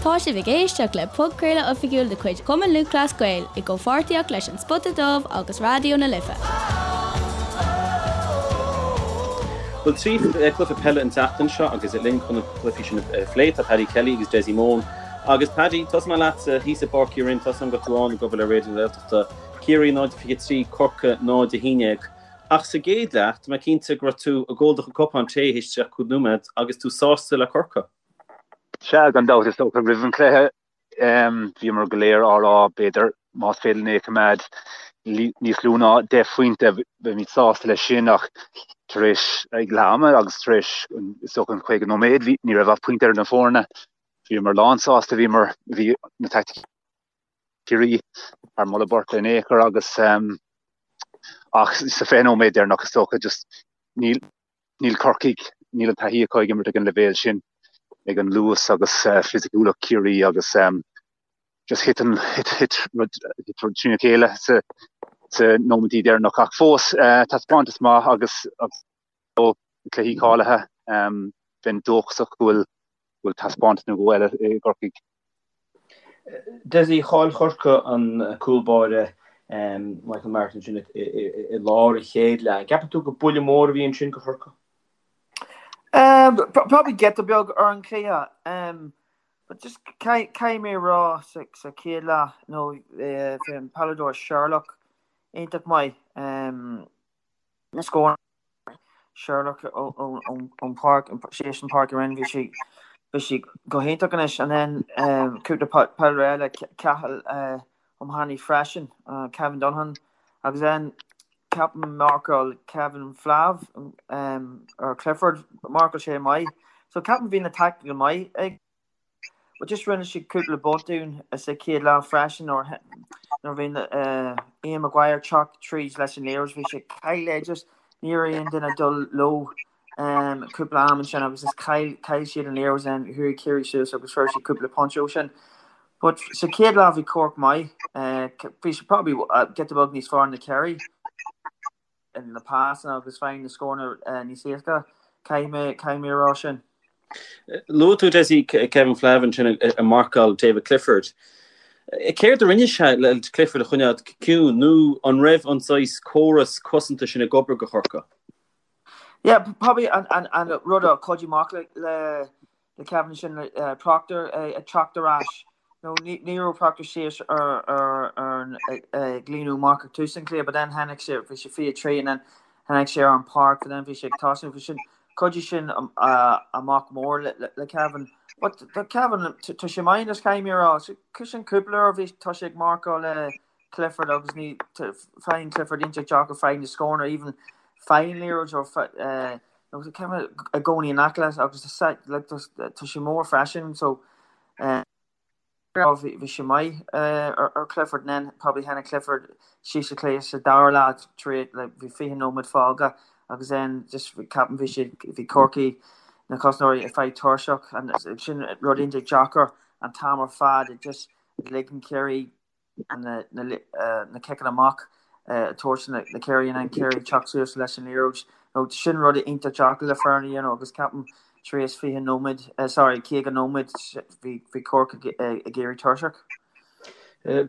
Tá sibh ag éisteacht le podchraoladh oifigiúil de chuid Chumann Lúthchleas Gael i gcomhpháirtíocht leis An Spota Dubh agus Raidió na Life. Bhuel, 3 cluiche peile an tseachtain seo agus linn chun na cluichí sin a phlé tá Paddy Kelly agus Dessie Mone. Agus Paddy, tosóidh mé leatsa thíos i bPáirc Uí Rinn, tá a fhios agam go raibh tú ann ag obair le Raidió na Gaeltachta, Ciarraí 0-23, Corcaigh 0-11. Ach sa gcéad leath, tá mé cinnte go raibh tú ag ól do chuid cupán tae théis 35 nóiméad agus tú sásta le Corcaigh. Sea, gan dabht, is dócha roimh an chluiche bhíomar go léir á rá, b'fhéidir, más féidir linn é a choimeád níos lú ná 10 phointe, beimid sásta leis sin ach tar éis ag leath ama agus tar éis is dócha an 50 nóiméad, bhí, ní raibh ach pointe idir na foirne. Bhíomar lánsásta, bhíomar, bhí na taicticí Ciarraí thar moladh beirte in aon chor agus ach sa 20 nóiméad deireanach is dócha just níl Níl Corcaigh, níl an taithí acu ag imirt ag an leibhéal sin, ag an luas agus fisiciúlacht Chiarraí agus just thit an, thit rud trína chéile sa sa nóiméidí deireanach. Ach fós, taispeántas maith agus cluichí cáilithe, bheinn dóchasach go bhfuil go bhfuil taispeántas nó dhó eile i gCorcaigh. Dessie, chaill Corcaigh an cúl báire Michael Martin sin i lár an chéad leath. An gceapann tú gur buille mór a bhí ansin do Chorcaigh? Probably giota beag ar an chluiche. But just caithfidh mé a rá sa chéad leath, nó bhí an peileadóir Sherlock iontach maith. Na scóranna. Sherlock ón pháirc, síos an pháirc a bhí sé bhí sé go hiontach anois and then cúpla peileadóir eile Cathal O'Mahony freisin, Kevin Donovan agus then ceapaim marcáil Kevin Flav ar Clifford, marcáil sé maith. So ceapaim bhí na tactical maith ag But just rinne siad cúpla botún sa chéad leath freisin nuair nuair bhí Ian Maguire teacht tríd leis an liathróid bhí sé chaill é just ní raibh aon duine dul leo cúpla am ansin agus just chaill chaill siad an liathróid then chuaigh Ciarraí suas agus fuair siad cúpla pointe ó sin. But sa chéad leath bhí Cork maith bhí siad probably giota beag níos fearr na Ciarraí. na pasanna agus faigheann na scóranna níos éasca, caithfidh mé, caithfidh mé a rá sin. Luaigh tú Dessie Kevin Flavin ansin ag marcáil David Clifford. Céard a rinne sé le Clifford a choinneáil ciúin nó an raibh an saghas córas cosanta sin ag obair do Chorcaigh? Yeah, probably an, an, an rud a chuidigh amach le, le le Kevin sin Proctor ag teacht ar ais. Nó ní raibh Proctor síos ar ar an ag líonadh amach ag tús an chluiche but then tháinig sé bhí sé 23 and then tháinig sé ar an páirc but then bhí sé ag tosnú bhí sin chuidigh sin amach mór le le Kevin. But do Kevin tá sé maith anois caithfidh mé a rá. So sin cúpla uair bhí tá sé ag marcáil le Clifford agus ní faigheann Clifford iontach deacair faigheann na scóranna even faigheann liathróid ó nó tá Kevin i gcónaí in aice leis agus tá sé mór freisin so bhí sé maith ar Clifford then probably tháinig Clifford síos sa chluiche sa dara leath tar éis like bhí 20 nóiméad fágtha agus then just ceapaim bhí sé bhí Corcaigh na cosantóirí ag fáil tuirseach and sin rud iontach deacair an t-am ar fad just ligeann Ciarraí na ciceanna amach a thabhairt na Ciarraí and then Ciarraí teacht suas leis an liathróid. Nó sin rud iontach deacair le foireann a dhéanamh agus ceapaim tar éis 20 nóiméad, sorry, 50 nóiméad bhí bhí Corcaigh ag éirí tuirseach.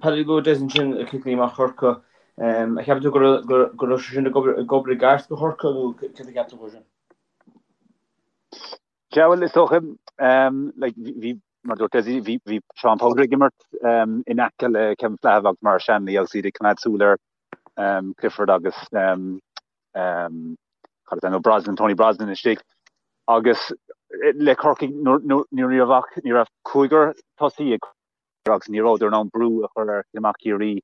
Paddy luaigh Des ansin ciceanna amach Chorcaí. An gceapann tú go raibh sé sin ag obair i gceart do Chorcaigh nó céard a cheap tú faoi sin? Sea, bhuel, is dócha, like, bhí, mar a dúirt Dessie, bhí, bhí Seán Powter ag imirt in aice le Kevin Flahive agus Maurice Shanley agus iad ag coimeád súil ar Clifford agus cad is ainm dó, Brosnan, Tony Brosnan istigh. Agus le Corcaigh, ní raibh ach, ní raibh cúigear tosaí ag agus ní rabhadar in ann brú a chur ar chic amach Chiarraí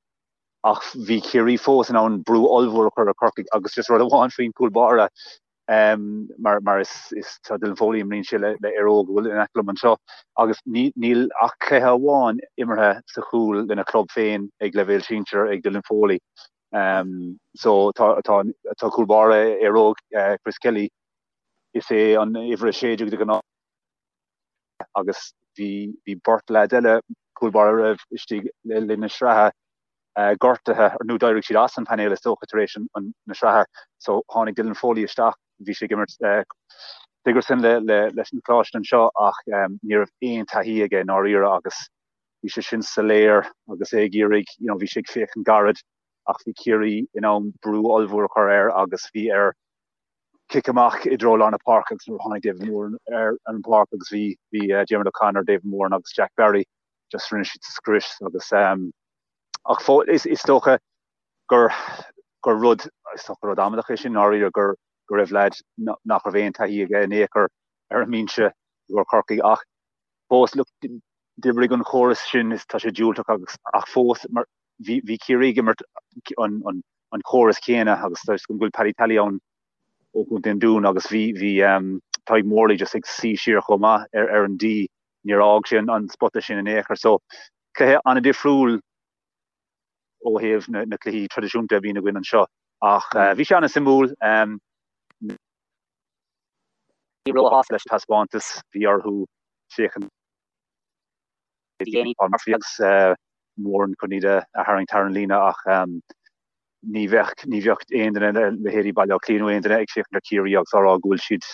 ach bhí Ciarraí fós in ann brú ollmhór a chur ar Chorcaigh agus just rud amháin faoin chúl báire mar mar is is tá Dylan Foley imríonn sé le le Éire Óg a bhfuil in aice liom anseo agus ní níl ach cluiche amháin imeartha sa chúl lena chlub féin ag leibhéal sinsir ag Dylan Foley. Um, so tá tá tá cúl báire Éire Óg uh, Chris Kelly is é an uimhir 16 de ghnáth agus bhí bhí beirt leaid eile cúl báire a raibh istigh le linn na sraithe gortaithe nó d'éirigh siad as an painéal is dócha tar éis na sraithe so tháinig Dylan Foley isteach bhí sé ag imirt. Sigerson le leis an choláiste anseo ach ní raibh aon taithí aige i ndáiríre agus bhí sé sin soiléir agus é ag iarraidh, you know, bhí sé ag féachaint gairid ach bhí Ciarraí in ann brú ollmhór a chur air agus bhí air cic amach i dtreo lár na páirce agus nuair a tháinig David Moran ar an bpáirc agus bhí bhí Diarmuid O'Connor, David Moran agus Jack Barry just rinne siad scrios agus ach is is dócha gur gur rud is dócha rud amaideach é sin i ndáiríre gur go raibh leaid nach raibh aon taithí aige in aon chor ar an mbinse i gcomhair Chorcaí ach fós look d'oibrigh an chóras sin is tá sé diúltach agus ach fós mar bhí bhí Ciarraí ag imirt an an an chóras céanna agus tá go bhfuil Paddy Tally ann ó Chontae an Dúin agus bhí bhí um, Tadhg Morley just ag suí siar chomh maith ar ar an D níor fhág sé an, an spota sin in aon chor so cluiche an-difriúil ó thaobh na, na cluichí traidisiúnta a bhíonn againn anseo ach uh, bhí sé an-suimiúil um, ní róshásta leis an taispeántas bhí orthu féachaint Paul Murphy agus uh, Moran chun iad a tharraingt thar an líne ach um, ní bheadh ní bheadh aon duine leithéidí Baile Átha Cliath nó aon duine ag féachaint ar Chiarraí agus á rá go bhfuil siad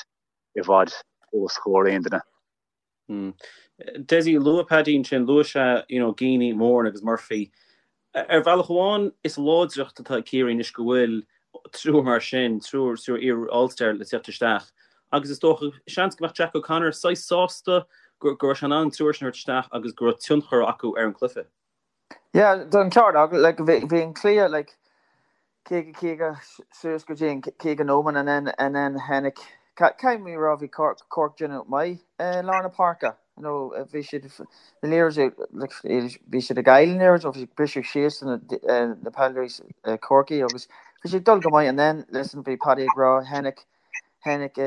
i bhfad os comhair aon duine. Dessie, luaigh Paddy ansin, luaigh sé you know Geaney, Moran agus Murphy. Ar bhealach amháin is láidreacht atá ag Ciarraí anois go bhfuil triúr mar sin, triúr triúr iar All-Star le teacht isteach agus is dócha, seans go mbeadh Jack O'Connor saghas sásta go raibh sé in ann an triúr sin a thabhairt isteach agus go raibh tionchar acu ar an gcluiche. Yeah, tá an ceart agat, like bhí an cluiche like 50 50 suas go dtí an 50 nóiméad and then and then tháinig caithfidh mé a rá bhí Cork Cork déanamh maith i lár na páirce you know bhí siad na liathróid like bhí siad ag fáil na liathróid bhí siad briseadh síos na na peileadóirí Corcaigh agus bhí siad ag dul go maith and then listen bhí Paddy ag rá tháinig tháinig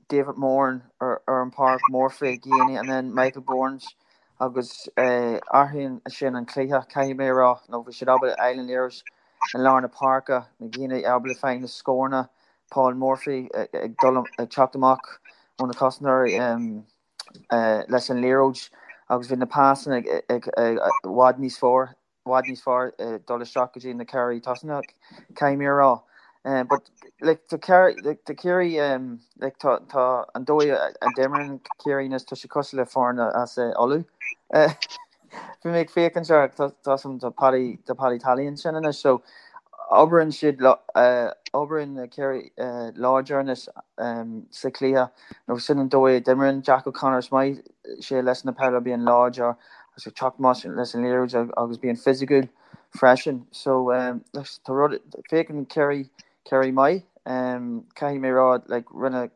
David Moran ar ar an páirc Murphy Geaney and then Michael Burns agus athraíonn sin an cluiche caithfidh mé a rá nó bhí siad ábalta fháil an liathróid i lár na páirce, na daoine ábalta fáil na scóranna, Paul Murphy ag dul ag teacht amach ó na cosantóirí leis an liathróid agus bhí na pasanna ag i bhfad níos fearr bhfad níos fearr dul isteach go dtí na ceathraí tosach, caithfidh mé a rá. But like tá like tá Ciarraí like tá tá an dóigh a d'imríonn Ciarraí anois tá sé cosúil le foireann as Uladh. Bhí mé ag féachaint ar tá tá Paddy tá Paddy Tally ansin anois so oibríonn siad oibríonn Ciarraí láidir anois sa chluiche nó sin an dóigh a d'imríonn Jack O'Connor is maith sé leis na peileadóirí bíonn láidir agus ag teacht amach leis an liathróid agus bíonn fisiciúil freisin. So tá rud féachann Ciarraí Ciarraí maith caithfidh mé rá like rinne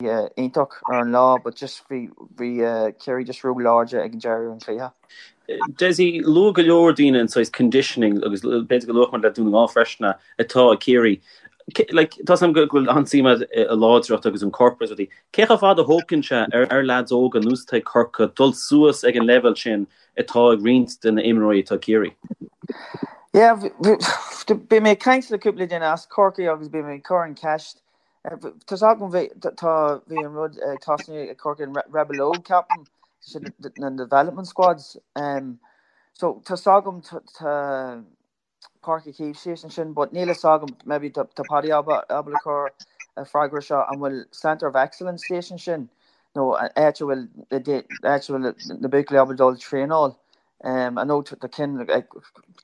iontach ar an lá but just bhí bhí Ciarraí just ró-láidir ag an deireadh an chluiche. Dessie, luaigh go leor daoine an saghas conditioning agus b'fhéidir go luafadh muid le Dún na nGall freisin atá ag Ciarraí. Like, tá 's agam go bhfuil an-suim agat i láidreacht agus an corp agus rudaí. Cé chomh fada a thógann sé ar ar leaids óga nós atá ag Corcaigh dul suas ag an leibhéal sin atá ag roinnt de na imreoirí atá ag Ciarraí? Yeah, bhí mé ag caint le cúpla duine as Corcaigh agus bhí mé ag cur an ceist Tá's agam bhí tá bhí an rud ag tosnú ag Corcaigh an Rebel Óg ceapaim sin na development squads um, so tá's agam tá Páirc Uí Chaoimh síos ansin but níl fhios agam maybe tá tá Paddy ábalta cur freagra seo an bhfuil Centre of Excellence síos ansin nó áit a bhfuil áit a bhfuil na buachaillí ábalta dul traenáil I know tá cinn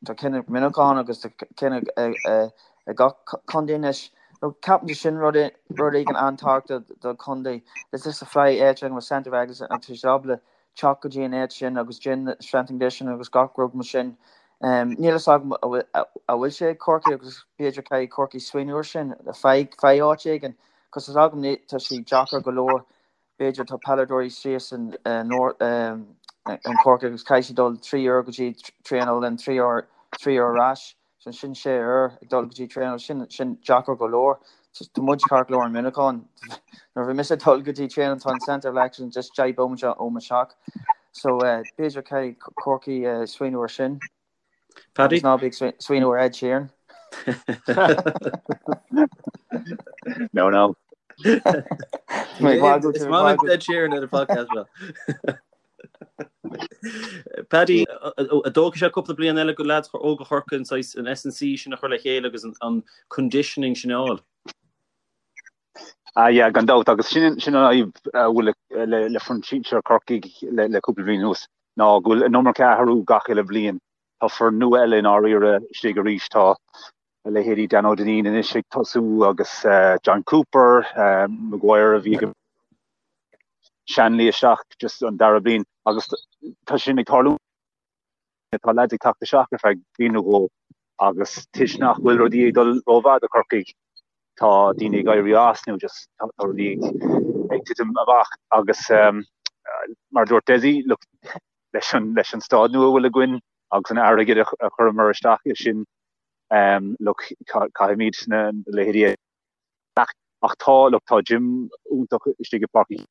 tá cinn ag Muineachán agus tá cinn ag ag gach contae anois. Nó ceapaim sin rud rud éigin an-tábhachtach do chontae. Is just a fly áit an bhfuil Centre of Excellence agus tá siad ábalta teacht go dtí an áit sin agus déan strength and conditioning agus gach rud mar sin. Níl fhios agam an bhfuil sé ag Corcaigh agus b'fhéidir caithfidh Corcaigh smaoineamh ar sin faigh faigh áit éigin cos tá 's agam tá sé deacair go leor b'fhéidir tá peileadóirí síos in in Corcaigh agus caithfidh siad dul 3 uair go dtí traenáil and 3 uair 3 uair ar ais so sin 6 uair ag dul go dtí traenáil sin sin deacair go leor tá muid ceart go leor in Muineachán nuair bhí mise ag dul go dtí traenáil tá an Centre of Excellence just 10 bomaite ó mo theach so b'fhéidir caithfidh Corcaigh smaoineamh ar sin. Paddy? Agus ná bí ag smaoineamh ar Ed Sheeran. No, no. Is maith liom Ed Sheeran ar an podcast seo. Paddy, an dtógfaidh sé cúpla bliain eile go leaids óga Chorcaí an saghas an S&C sin a chur le chéile agus an conditioning sin a fháil? Ah yeah, gan dabht, agus sin sin an fhadhb a bhfuil le le foireann sinsir Chorcaigh le le cúpla bliain anuas, ná go bhfuil an iomarca athrú gach uile bhliain. Tá foireann nua eile i ndáiríre istigh arís, tá a leithéidí Dan Ó Duinnín anois ag tosú agus John Cooper, Maguire a bhí ag Shanley isteach just an dara bliain agus tá sin ag tarlú. Tá leaids ag teacht isteach ar feadh bliain nó dhó agus toisc nach bhfuil rudaí ag dul rómhaith do Chorcaigh, tá daoine ag éirí as nó just tá rudaí ag titim amach agus mar a dúirt Dessie, look, leis an, leis an staid nua a bhfuil againn agus an airgead a chuireamar isteach i sin, look, caithfimid na leithéidí a ach tá, look, tá gym iontach istigh i bPáirc Uí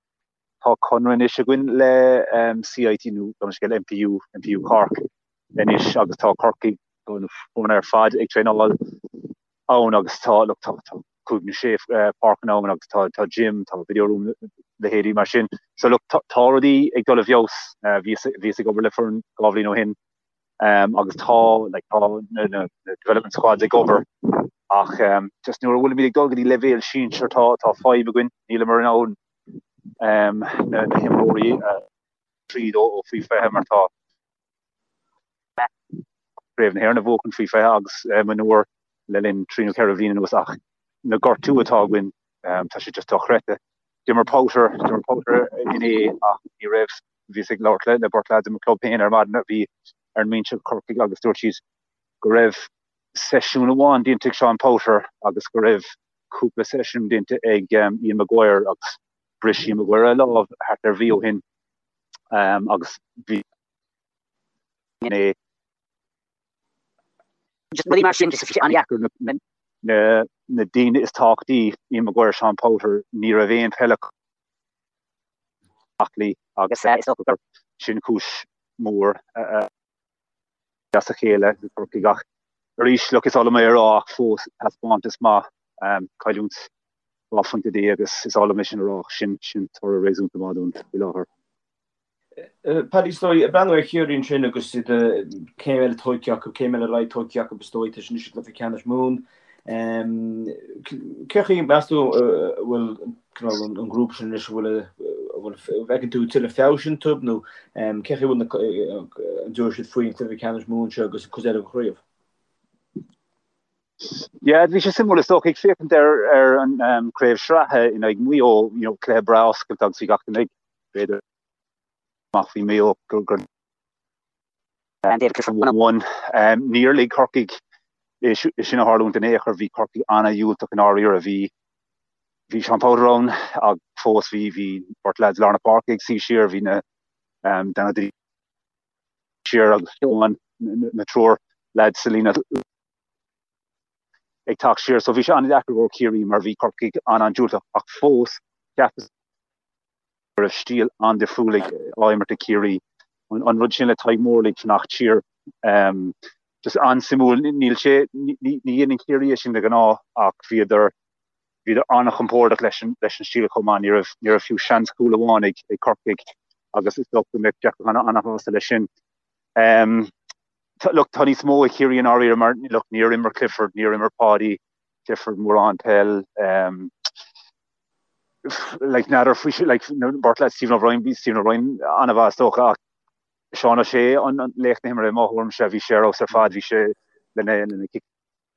Tá conradh anois againn le CIT nó gabh mo leithscéal MPU, MPU Cork anois agus tá Corcaigh, tá na foirne ar fad ag traenáil ann agus tá, look, tá, tá cúig nó sé páirceanna ann agus tá, tá gym, tá video room, leithéidí mar sin. So look, tá, tá rudaí ag dul i bhfeabhas. Bhíos, bhíos ag obair le foireann dhá bhliain ó shin agus tá, like, tá na, na, na development squads ag obair ach just nuair a bhfuilimid ag dul go dtí leibhéal sinsir tá, tá fadhb againn, níleamar in ann na himreoirí tríd ó faoi 20 mar tá Craobh na hÉireann a bhuachan faoi 20 agus mionúir le linn trí nó ceithre bhliain anuas ach na gortú atá againn tá sé just dochreidte. D'imir Powter, d'imir Powter inné ach ní raibh, bhíos ag labhairt le beirt leaids i mo club féin ar maidin a bhí ar an mbinse ag Corcaigh agus dúirt siad go raibh seisiún amháin déanta ag Seán Powter agus go raibh cúpla seisiún déanta ag Ian Maguire agus bhris Ian Maguire a lámh thart ar mhí ó shin agus bhí é rudaí mar sin just an-deacair na na daoine is tábhachtaí Ian Maguire, Seán Powter, ní raibh aon peil aclaí agus is dócha gur sin cúis mhór as a chéile do Chorcaigh ach arís, look, is oth liom é a rá ach fós taispeántas maith, cailliúint 12 phointe agus is oth liom é sin a rá ach sin, sin toradh réasúnta maith dúinn faoi láthair. Paddy, is dóigh, ag breathnú ar Chiarraí ansin agus iad céim eile tógtha acu, céim eile ar aghaidh tógtha acu is dóigh, tá siad anois i gcluiche ceannais Mumhan. Cén chaoi, meas tú, a bhfuil cineál an grúpa sin anois, an bhfuil, an bhfuil, an bhfeiceann tú tuilleadh feabhais iontu nó cén chaoi a bhfuil na, an dtabharfaidh siad faoin chluiche ceannais Mumhan seo agus an chuid eile den chraobh? Yeah, bhí sé suimiúil is dócha ag féachaint ar ar an craobh sraithe in aghaidh Maigh Eo, you know, cluiche breá oscailte agus bhí gach duine ag b'fhéidir amach faoi Maigh Eo gur gur One. Níor lig Corcaigh é sin a tharlúint in aon chor. Bhí Corcaigh an-dhiúltach i ndáiríre. Bhí bhí Seán Powter ann ach fós bhí bhí beirt leaids lár na páirce ag suí siar, bhí na Dan Ó Duinnín siar agus Seán na triúr leaids sa líne ag teacht siar. So bhí sé an-deacair do Chiarraí mar bhí Corcaigh an-an-diúltach ach fós cheapas go raibh stíl an-difriúil ag á imirt ag Ciarraí. An rud sin le Tadhg Morley ag fanacht siar, just an-suimiúil. Níl sé, ní dhéanann Ciarraí é sin de ghnáth ach bhíodar, bhíodar an-chompordach leis an, leis an stíl chomh maith. Ní raibh, ní raibh fiú seans cúl amháin ag, ag Corcaigh agus is dócha go mbeadh Jack O'Connor an-shásta leis sin. Look, tá níos mó ag Ciarraí i ndáiríre mar, look, níor imir Clifford, níor imir Páidí Clifford mórán peil. Like, n'fheadar faoi sin, like, beirt leaid Stephen O'Brien, bhí Stephen O'Brien an-mhaith is dócha ach Seán O'Shea an laoch na himeartha i mo thuairimse, bhí sé ar fheabhas ar fad, bhí sé lena lena cic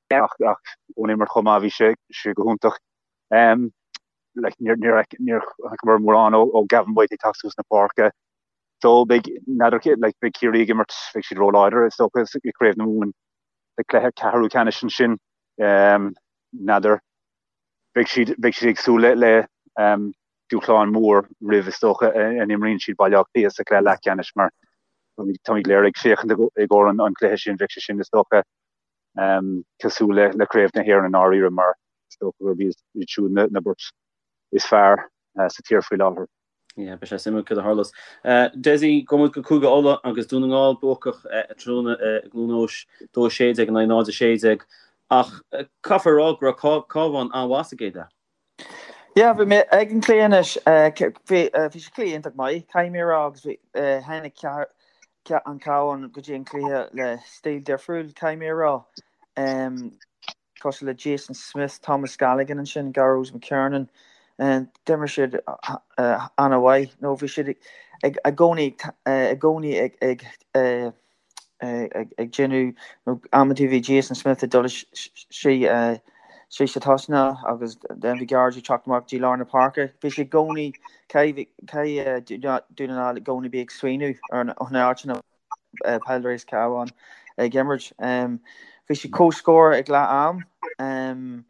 ach ach ón imirt chomh maith bhí sé sé go hiontach. Um, like, níor níor níor chonaiceamar mórán ó ó Gavin White ag teacht suas na páirce. So beidh n'fheadar like, beidh Ciarraí ag imirt, beidh siad róláidir is dócha i gCraobh na Mumhan sa cluiche ceathrú ceannais ansin. Um, n'fheadar beidh siad, beidh siad ag súil le, le um, dúshlán mór roimh is dócha a n-imríonn siad Baile Átha Cliath sa chluiche leathcheannais mar táimid go léir ag féachaint i gcomhair an, an chluiche sin, bheadh sé sin is dócha um, cosúil le, le Craobh na hÉireann i ndáiríre mar is dócha gurb iad siúd na, na beirt is fearr uh, sa tír faoi láthair. Yeah, beidh sé suimiúil céard a tharlós. Dessie, gabhfaidh muid go Cúige Uladh agus Dún na nGall buacach tráthnóna i gCluain Eois, 2-16 in aghaidh 0-16. Ach caithfear a rá go raibh Cabhán an-mhaith sa gcéad leath. Yeah, bhí mé ag an cluiche anois. Bhí bhí sé cluiche iontach maith, caithfidh mé a rá, agus bhí tháinig an Cabhán go dtí an cluiche le stíl difriúil, caithfidh mé a rá. Cosúil le Jason Smith, Thomas Galligan ansin, Gearóid McKiernan. D'imir siad an-mhaith nó bhí siad ag i gcónaí i gcónaí ag ag ag déanamh nó amantaí bhí Jason Smith ag dul istigh sa tosnach agus then bhí Gearóid ag teacht amach dtí lár na páirce. Bhí sé i gcónaí caithfidh Dún na nGall i gcónaí bí ag smaoineamh ar an áit ina peileadóirí as Cabhán ag imirt. Bhí sé comhscór ag leath am.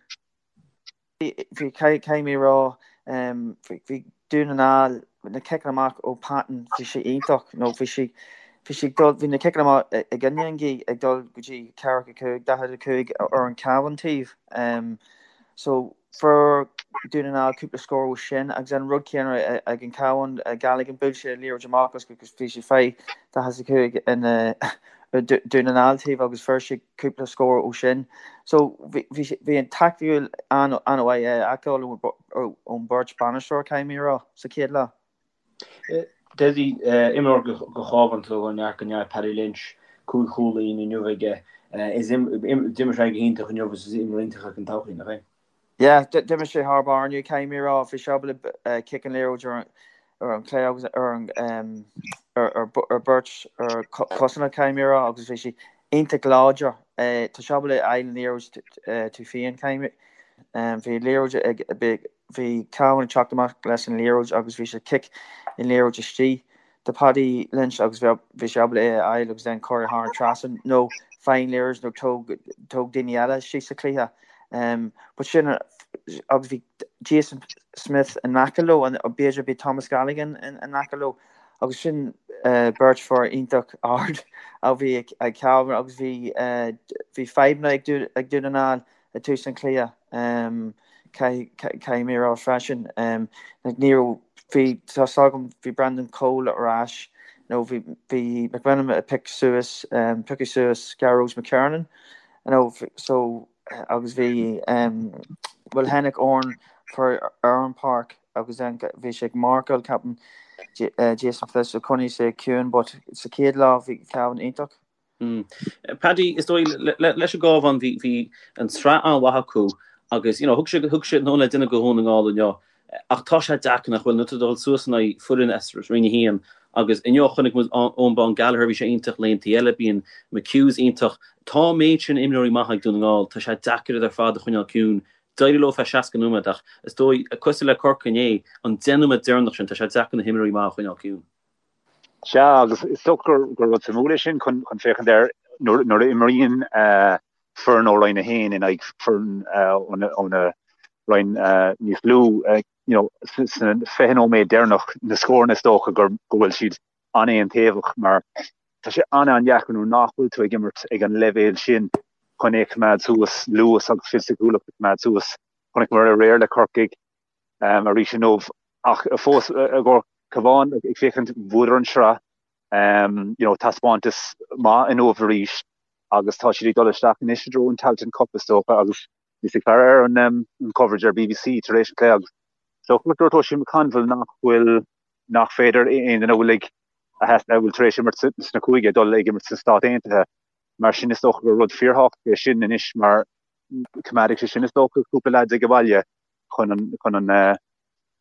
Bhí, caithfidh mé a rá, bhí Dún na nGall, na ciceanna amach ó Patton, bhí sé iontach, nó bhí sé, bhí sé ag dul, bhí na ciceanna amach i gcoinne an ghaoth ag dul go dtí 45, 45 ar an Cabhán taobh. So fuair Dún na nGall cúpla scór ó sin agus an rud céanna ag an Cabhán, Galligan, bhuail sé an liathróid amach agus bhí sé fé 45 in Dún na nGall taobh agus fuair sé cúpla scór ó sin. So bhí an taictiúil an-mhaith a fheiceáil ón beirt bainisteoir, caithfidh mé a rá, sa chéad leath. Dessie, imreoir do Chábhán atá ó neart go neart, Paddy Lynch, 5 chúilín inniu aige. D'imir sé go hiontach inniu agus is imreoir iontach é don todhchaí, nach é? Yeah, d'imir sé thar barr inniu, caithfidh mé a rá. Bhí sé ábalta cic an liathróid ar ar an chlé agus ar an ar beirt ar cosanna, caithfidh mé a rá, agus bhí sé iontach láidir. Tá sé ábalta fháil an liathróid tú féin, caithfidh mé. Bhí liathróid ag bhí Cabhán ag teacht amach leis an liathróid agus bhí sé cic an liathróid istigh. do Paddy Lynch agus bhí sé ábalta é a fháil agus then cur thar an trasnán nó faigh an liathróid nó tóg tóg daoine eile síos sa chluiche. But sin agus bhí Jason Smith in aice leo and b'fhéidir bhí Thomas Galligan in aice leo agus sin beirt fear iontach ard a bhí ag Cabhán agus bhí bhí fadhbanna ag Dún na nGall ag tús an chluiche, caithfidh mé a rá freisin. Ní raibh, bhí, tá 's agam, bhí Brendan Cole ar ais, nó bhí, bhí McMenamin ag pick suas, piocadh suas Gearóid McKiernan, nó so, agus bhí, bhuel tháinig Oran for ar an páirc agus then bhí sé ag marcáil, ceapaim, Jason Smith, so choinnigh sé ciúin, but sa chéad leath bhí Cavan iontach. Paddy, is dóigh leis an gCábhán bhí an tsraith an-mhaith acu agus you know thug sé thug sé nóin le duine go Dhún na nGall inniu ach tá sé deacair nach bhfuil nuair atá tú ag dul suas in aghaidh foireann as Roinn 1 agus inniu chonaic muid Eoin Bán Gallagher bhí sé iontach laethanta eile bíonn McHughs iontach. Tá an méid sin imreoirí maithe ag Dún na nGall tá sé deacair iad ar fad a choinneáil ciúin. D'éirigh leo feadh 60 nóiméad ach is dóigh cosúil le Corcaigh inné an 10 nóiméad deireanach sin tá sé deacair na himreoirí maithe a choinneáil ciúin. Sea, agus is dócha gur rud suimiúil é sin chun féachaint air nuair a imríonn foireann ó Roinn 1 in aghaidh foireann óna roinn níos lú, you know, sna 20 nóiméad deireanach na scóranna is dócha go bhfuil siad an-aontaobhach mar tá sé an-an-deacair nuair nach bhfuil tú ag imirt ag an leibhéal sin chun é a choimeád suas, luas agus fisiciúlacht a choimeád suas. Chonaiceamar aréir le Corcaigh arís inniu ach fós i gcomhair Cabhán ag féachaint bhuadar an sraith you know taispeántas maith inniu arís agus tá siad ag dul isteach anois i dtreo an Tailteann Cup is dócha agus bhíos ag faire ar an um, an coverage ar BBC tar éis an cluiche agus is dócha go dúirt Oisín McConville nach bhfuil nach féidir aon duine a bhfuil ag a bhfuil tar éis imirt sna cúige dul ag imirt sna Stáit Aontaithe mar sin is dócha gur rud fíorthábhachtach é sin anois mar coimeádfaidh sé sin is dócha cúpla leaids ag an bhaile chun an chun an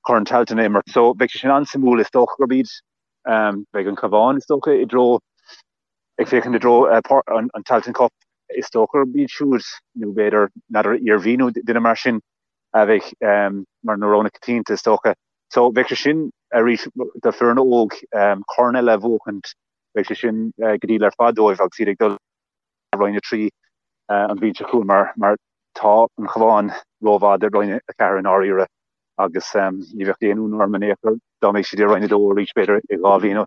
Corn Tailteann a imirt. So beidh sé sin an-suimiúil. Is dócha gurb iad beidh an Cabhán is dócha i dtreo ag féachaint i dtreo an an Tailteann Cup. Is dócha gurb iad siúd nó b'fhéidir n'fheadar Iarmhí nó duine mar sin a bheidh mar na roghanna coitianta is dócha. So bheadh sé sin arís do foireann óg corn eile a bhuachaint beidh sé sin go diail ar fad dóibh agus iad ag dul Roinn 3 an bhliain seo chugainn mar mar tá an Cabhán rómhaith do Roinn 4 i ndáiríre agus ní bheadh aon ionadh orm in aon chor dá mbeadh siad i Roinn 2 arís b'fhéidir i 2 bhliain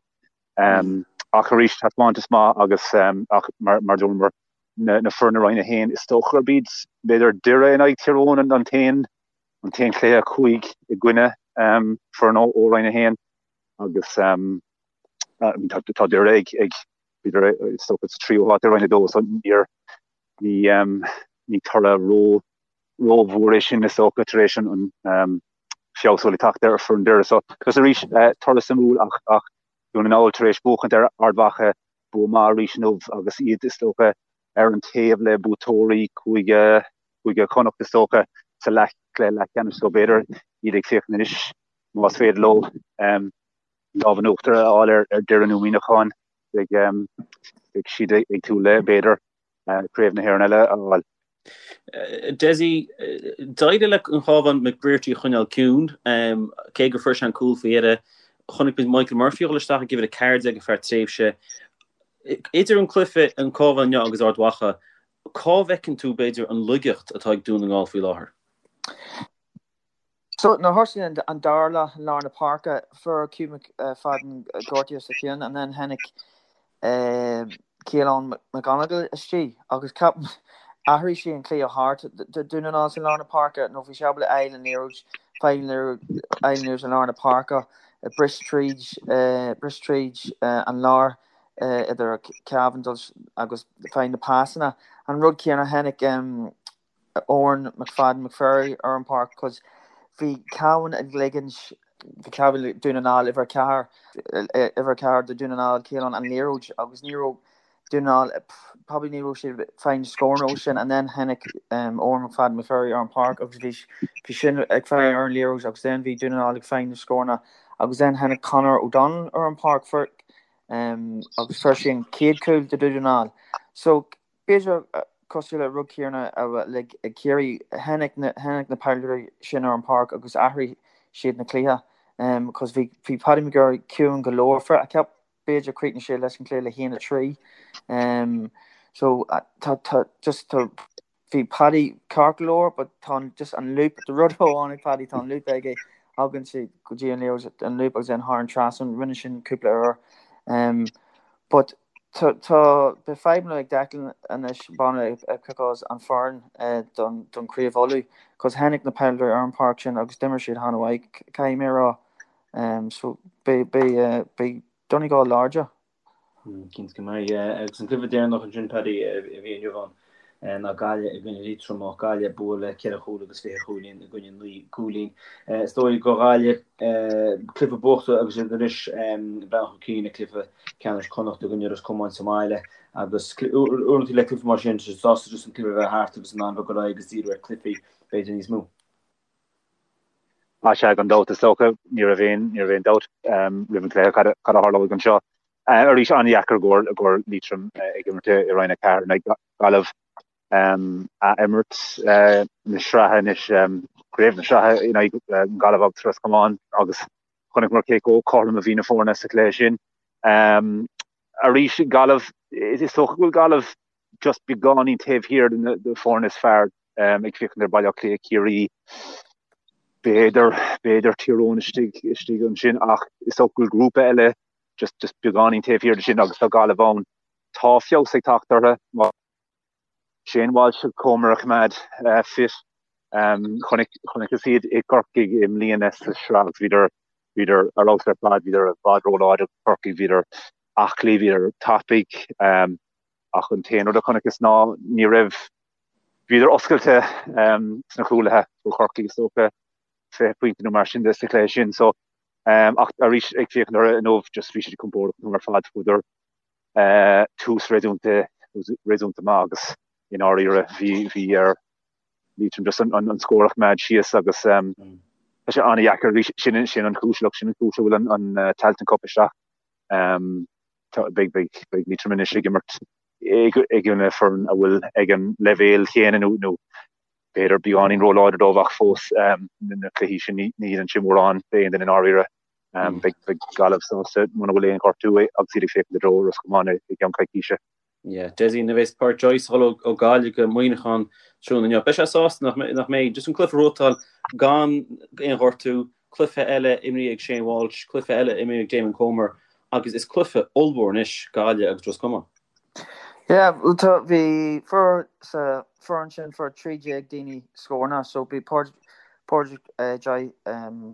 ach arís taispeántas maith agus ach mar mar dúramar na na foirne Roinn 1 is dócha gurb iad b'fhéidir Doire in aghaidh Tír Eoghain an t-aon an t-aon chluiche 5 i gcoinne foireann ó Roinn 1 agus tá Doire ag ag Bhíodar is dócha sa tríú háit i Roinn 2 so níor ní ní toradh ró rómhór é sin is dócha tar éis an an feabhas a bhfuil ag teacht ar foireann Doire. So agus arís toradh suimiúil ach ach Dún na nGall tar éis buachaint ar Ard Mhacha bua maith arís inniu agus iad is dócha ar an taobh le buaiteoirí Cúige Cúige Chonnacht is dócha sa leath cluiche leathcheannais so b'fhéidir. iad ag féachaint anois más féidir leo lámh in uachtar a fháil ar Doire nó Muineachán beidh siad ag súil le, b'fhéidir, Craobh na hÉireann eile a fháil. Dessie, d'éirigh le an Cabhán McBrearty a choinneáil ciúin, cé gur fuair sé an cúl faoi dheireadh. Chonaic muid Michael Murphy a dhul isteach ag uimhir 14 ar feadh tréimhse. Idir an cluiche, an Cabhán inniu agus Ard Mhacha, cá bhfeiceann tú, b'fhéidir, an laigeacht atá ag Dún na nGall faoi láthair? So, nuair a thosaigh an dara leath i lár na páirce, fuair Hugh McFadden gortaithe sa cheann and then tháinig Caolán McGonigle istigh agus ceapaim athraigh sé an cluiche thart do Dún na nGall sa lár na páirce nó bhí sé ábalta fháil an liathróid, fáil an liathróid i lár na páirce, bris tríd, bris tríd an lár idir Cavan agus fáil na pasanna. An rud céanna tháinig Odhrán McFadden McVerry ar an bpáirc cos bhí Cavan ag ligint bhí Cavan Dún na nGall uimhir 4 uimhir 4 do Dún na nGall Caolán an liathróid agus ní raibh Dún na nGall probably ní raibh siad fáil na scóranna ó sin and then tháinig Odhrán McFadden McVerry ar an bpáirc agus bhí bhí sin ag fáil ar an liathróid agus then bhí Dún na nGall ag fáil na scóranna agus then tháinig Conor O'Donnell ar an bpáirc fuair agus fuair sé an chéad chúl do Dún na nGall so B'fhéidir, cosúil le rud céanna le Ciarraí, tháinig na tháinig na peileadóirí sin ar an páirc agus athraigh siad na cluiche cos bhí bhí Paddy McGirr ciúin go leor for I ceap b'fhéidir chríochnaigh sé leis an cluiche le haon 3 so tá tá just tá bhí Paddy ceart go leor but tá an just an lúb the rud amháin ag Paddy tá an lúb aige thagann sé go dtí an liathróid an lúb agus then thar an trasnán rinne sin cúpla uair but Tá beidh fadhbanna ag Declan anois b'fhéidir ag piocadh an foireann don Chraobh Uladh cos tháinig na peileadóirí ar an páirc sin agus d'imir siad an-mhaith caithfidh mé a rá. So beidh beidh Donegal láidir. Cinnte go mbeidh. Agus an cluiche deireanach ansin Paddy a bhí inniu ann ná Gaillimh i gcoinne Liatroim. Gaillimh ag bua le 4 chúl agus 20 chúilín i gcoinne 9 gcúilín. Is dóigh do Ghaillimh cluiche buachta agus iad anois ag breathnú chun cinn ag cluiche ceannais Chonnacht i gcoinne Ros Comáin sa mbaile agus uaireanta le cluiche mar sin tá sásta just an cluiche a bheith thart agus in ann bheith ag dul ar aghaidh agus díriú ar chluichí b'fhéidir níos mó. Á sea, gan dabht is dócha, ní raibh aon ní raibh aon dabht roimh an chluiche cad a tharlóidh anseo. Arís an-dheacair i gcomhair Liatroim ag imirt i Roinn 4 in aghaidh Gaillimh a imirt na sraithe anois, craobh na sraithe in aghaidh Gaillimh agus Ros Comáin agus chonaiceamar cé chomh cothrom a bhí na foirne sa chluiche sin. Arís Gaillimh, is dócha go bhfuil Gaillimh just beagáinín taobh thiar de na foirne is fearr ag féachaint ar Baile Átha Cliath, Ciarraí, b'fhéidir, b'fhéidir Tír Eoghain istigh, istigh ansin ach is dócha go bhfuil grúpa eile just, just beagáinín taobh thiar de sin agus tá Gaillimh ann. Tá feabhas ag teacht orthu. Shane Walsh ag Comer a choimeád fit. Chonaic, chonaiceas iad i gCorcaigh i mbliana sa sraith agus bhíodar, bhíodar ar fheabhas ar fad, bhíodar i bhfad róláidir do Chorcaigh, bhíodar aclaí, bhíodar tapaidh. Ach an t-aon rud a chonaiceas ná ní raibh, bhíodar oscailte sna cúlaithe do Chorcaigh is dócha, 20 pointe nó mar sin de sa chluiche sin. So, ach arís ag féachaint orthu inniu, just bhí siad compordach an t-am ar fad, fuaireadar tús réasúnta, réasúnta maith agus i ndáiríre bhí, bhí ar Liatroim just an, an scór a choimeád síos agus tá sé an-dheacair arís, sin, sin an chúis, look, sin an chúis a bhfuil an, an Tailteann Cup isteach. Beidh, beidh, beidh Liatroim anois ag imirt i gcoinne foireann a bhfuil ag an leibhéal chéanna nó, nó b'fhéidir beagáinín róláidir dóibh ach fós na cluichí sin ní, ní dhéanann sé mórán d'aon duine i ndáiríre. Beidh, beidh Gaillimh sásta muna bhfuil aon ghortú agus iad ag féachaint i dtreo Ros Comáin i gceann coicíse. Yeah, Dessie, nuair a bheas Pádraic Joyce ag dul ó Ghaillimh go Muineachán tráthnóna inniu, beidh sé sásta nach nach mbeidh just an cluiche a bhuachtáil gan aon ghortú, cluiche eile imrithe ag Shane Walsh, cluiche eile imrithe ag Damon Comer agus is cluiche ollmhór anois Gaillimh agus Ros Comáin. Yeah, bhuel tá, bhí fuair sa foireann sin fuair 13 daoine scóranna so bhí Pádraic Joyce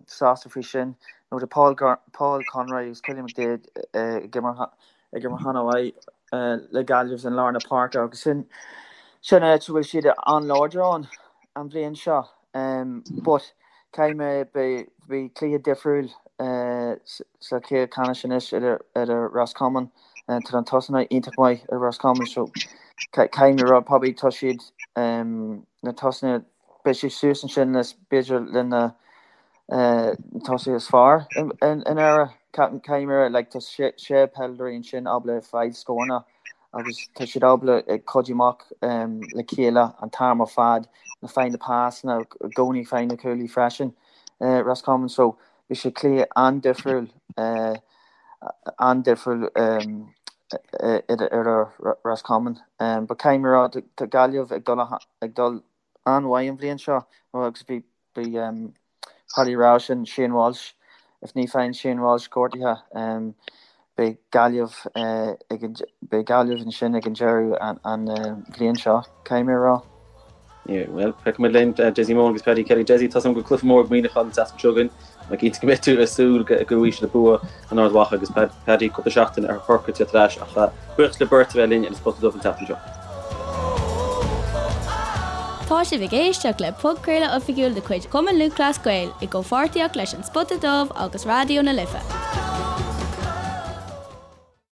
sásta faoi sin nó tá Paul Paul Conroy agus Cillian McDaid ag imirt ag imirt an-mhaith le Gaillimh in lár na páirce agus sin sin áit a bhfuil siad an-láidir ann an bhliain seo. But caithfidh mé beidh beidh cluiche difriúil sa chluiche ceannais anois idir idir Ros Comáin tá an tosaithe iontach maith ar Ros Comáin so caithfidh mé rá probably tá siad na tosaithe beidh siad suas ansin le b'fhéidir le na. Tosaithe is fearr in Éire. Caithfidh mé a rá, like, tá sé peileadóirí ansin ábalta fáil scóranna agus tá siad ábalta ag cuidiú amach le chéile an t-am ar fad, na fáil na pasanna, i gcónaí fáil na cúlaí freisin, Roscommon. So bhí sé cluiche an-difriúil, an-difriúil idir Roscommon. But caithfidh mé a rá, tá Gaillimh ag dul ag dul an-mhaith an bhliain seo agus bhí Bhí Paddy rá sin Shane Walsh, if ní faigheann Shane Walsh gortaithe, beidh Gaillimh ag an, beidh Gaillimh ansin ag an deireadh an bhliain seo, caithfidh mé a rá. Yeah, well, feicfimid linn Dessie Moran agus Paddy Kelly. Dessie, tá a fhios agam go bhfuil cluiche mór ag Muineachán an tseachtain seo chugainn. Tá cinnte go mbeidh tú ag súil go bhfaighidh siad bua in Ard Mhacha agus Paddy cúpla seachtain ar Chorcaigh tar éis ach buíochas libh beirt a bheith linn ar an Spota Dubh an tseachtain seo. Tá sibh ag éisteacht le podchraoladh oifigiúil de chuid Chumann Lúthchleas Gael i gcomhpháirtíocht leis An Spota Dubh agus Raidió na Life.